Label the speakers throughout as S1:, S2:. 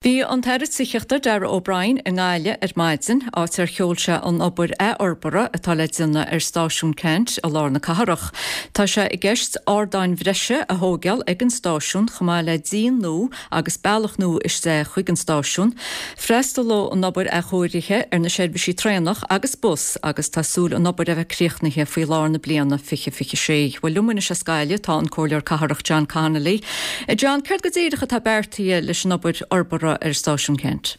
S1: Bhí an tAire Tithíochta, Darragh O'Brien, i nGaillimh ar maidin, áit ar sheol sé an obair athfhorbartha atá le déanamh ar Stáisiún Ceannt i lár na cathrach. Tá sé i gceist ardáin bhreise a thóigeáil ag an stáisiún chomh maith le díon nua agus bealach nua isteach chuig an stáisiún. Freastalóidh an obair athchóirithe ar na seirbhísí traenach agus bus agus tá súil an obair a bheith críochnaithe faoi lár na bliana 2026. Bhuel, liom anois as Gaillimh tá an Comhairleoir Cathrach John Connolly. A John, céard go díreach atá beartaithe leis an obair fhorbartha ar Stáisiún Ceannt?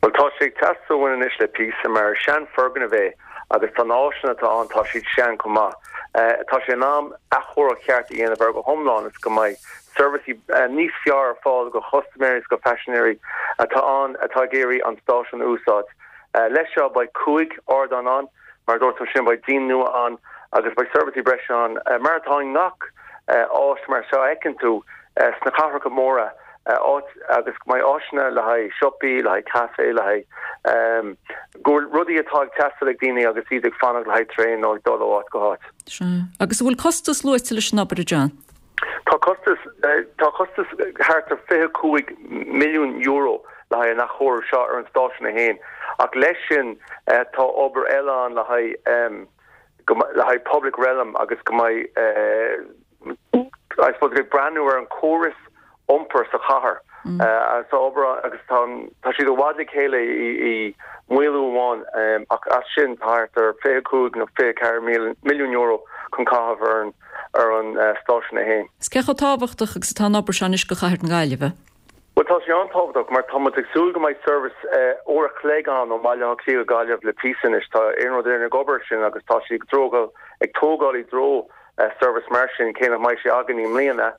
S2: Bhuel, tá sé ag teastáil uainn anois le píosa, mar is sean-fhoirgneamh é agus tá na áiseanna atá ann, tá siad sean chomh maith. Tá sé in am athchóiriú ceart a dhéanamh air go hiomlán is go mbeidh seirbhísí níos fearr ar fáil do chustaiméirí is do phaisinéirí atá ann atá ag iarraidh an stáisiún a úsáid. Leis seo beidh 5 ardán ann. Mar a dúirt tú ansin, beidh díon nua ann agus beidh seirbhísí breise ann, mar atá i ngach áit mar seo a fheiceann tú sna cathracha móra, áit agus go mbeidh áiseanna le haghaidh siopaí, le haghaidh caife, le haghaidh go bhfuil rudaí atá ag teastáil ag daoine agus iad ag fanacht le haghaidh traein nó ag dul ó áit go háit.
S1: Sea. Agus an bhfuil costas luaite leis an obair, a John?
S2: Tá costas, tá costas thart ar €25 milliún le haghaidh an athchóiriú seo ar an stáisiún é féin ach leis sin tá obair eile ann le haghaidh, le haghaidh public realm agus go mbeidh, I suppose, ag breathnú ar an córas iompair sa chathair. Tá obair agus tá tá siad i bhfad le chéile i maolú amháin ach as sin tá thart ar 25 nó 24 milliún euro chun caitheamh ar an ar an stáisiún é féin.
S1: Is cé chomh tábhachtach agus atá an obair seo anois do chathair na Gaillimhe?
S2: Bhuel tá sé an-tábhachtach mar tá muid ag súil go mbeidh seirbhís uair a chloig ann ó Bhaile Átha Cliath go Gaillimh le píosa anois. Tá Iarnród Éireann ag obair ar sin agus tá siad ag ag tógáil i dtreo seirbhís mar sin, cé nach mbeidh sé againn i mbliana.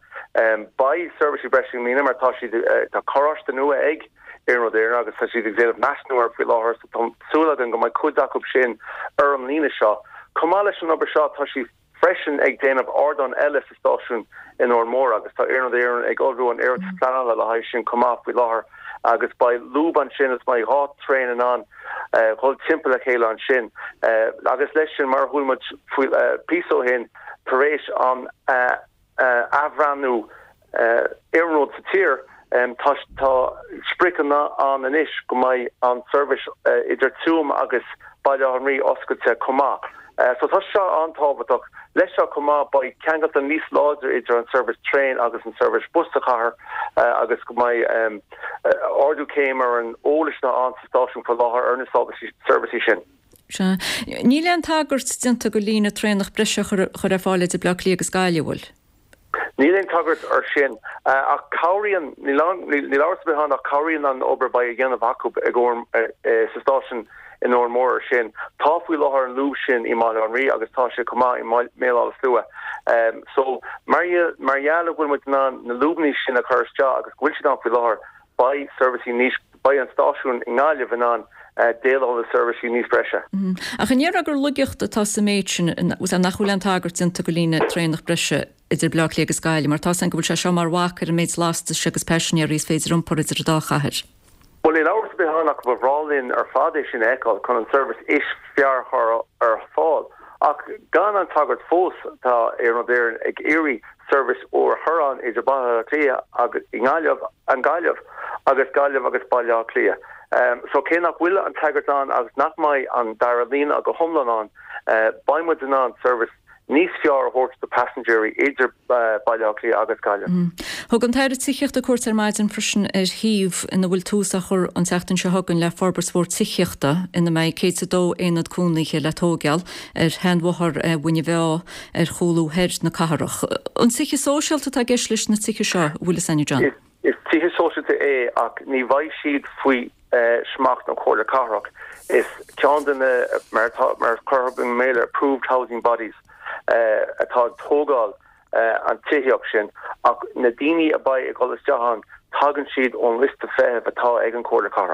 S2: Beidh seirbhísí breise i mbliana mar tá siad, tá carráiste nua ag Iarnród Éireann agus tá siad ag déanamh measúnú air faoi láthair so tá súil againn go mbeidh cuid acu sin ar an líne seo. Chomh maith leis an obair seo tá siad freisin ag déanamh ardán eile sa stáisiún in Órán Mór agus tá Iarnród Éireann ag ullmhú an iarratas pleanála le haghaidh sin chomh maith faoi láthair agus beidh lúb ansin is beidh 2 traein in ann dhul timpeall a chéile ansin agus leis sin, mar a chuala muid faoi píosa ó shin, tar éis an athbhreathnú iarnróid sa tír, tá tá spriocanna ann anois go mbeidh an seirbhís idir Tuaim agus Baile Átha an Rí oscailte chomh maith. So tá seo an-tábhachtach. Leis seo chomh maith beidh ceangalta níos láidre idir an seirbhís traein agus an seirbhís bus sa chathair agus go mbeidh ardú céim ar an eolas atá ann sa stáisiún faoi láthair ar na seirbhísí sin.
S1: Sea. Níl aon tagairt déanta do líne traenach breise a chur ar fáil idir Bleá Cliath agus Gaillimh, an bhfuil?
S2: Níl aon tagairt ar sin, ach cabhraíonn, níl amhras ar bith ann ach cabhraíonn an obair a beidh a dhéanamh acu ag sa stáisiún in Órán Mór ar sin. Tá faoi láthair an lúb sin i mBaile Átha an Rí agus tá sé chomh maith i mBéal Átha Slua. So mar gheall go bhfuil muid in ann na lúbanna sin a chur isteach agus go bhfuil siad ann faoi láthair, beidh seirbhísí níos, beidh an stáisiún i nGaillimh in ann déileáil le seirbhísí níos breise.
S1: Ach an ndéarfá gur laigeacht atá sa méid sin, nach bhfuil aon tagairt déanta do líne traenach breise idir Bleá Cliath agus Gaillimh, mar tá 's againn go bhfuil sé seo mar bhac ar an méid lastais agus paisinéirí is féidir iompar idir an dá chathair.
S2: Bhuel, níl amhras ar bith ann ach ba bhreá linn ar fad é sin a fheiceáil chun an seirbhís is fearr a chur ar fáil. Ach gan an tagairt fós, tá Iarnród Éireann ag iarraidh seirbhís úr a chur ann idir Baile Átha Cliath agus i nGaillimh, an Ghaillimh agus Gaillimh agus Baile Átha Cliath. So cé nach bhfuil an tagairt ann agus nach mbeidh an dara líne go hiomlán ann, beidh muid in ann seirbhís níos fearr a thabhairt do paisinéirí idir Baile Átha Cliath agus Gaillimh.
S1: Thug an tAire Tithíochta cuairt ar maidin freisin ar shuíomh ina bhfuil tús á chur an tseachtain seo chugainn le forbairt mhór tithíochta ina mbeidh 102 aonad cónaithe le tóigeáil ar sheanbhóthar Mhuine Mheá ar chúlú thoir na cathrach. An tithe sóisialta atá i gceist leis na tithe seo, an bhfuil fhios a'inn, a John?
S2: Is tithe sóisialta é ach ní bheidh siad faoi smacht na Comhairle Cathrach. Is ceann de na, mar atá, mar a chuirfeadh i mBéarla, approved housing bodies atá ag tógáil an tithíocht sin ach na daoine a bheidh ag dul isteach ann, tagann siad ón liosta feithimh atá ag an Chomhairle Cathrach.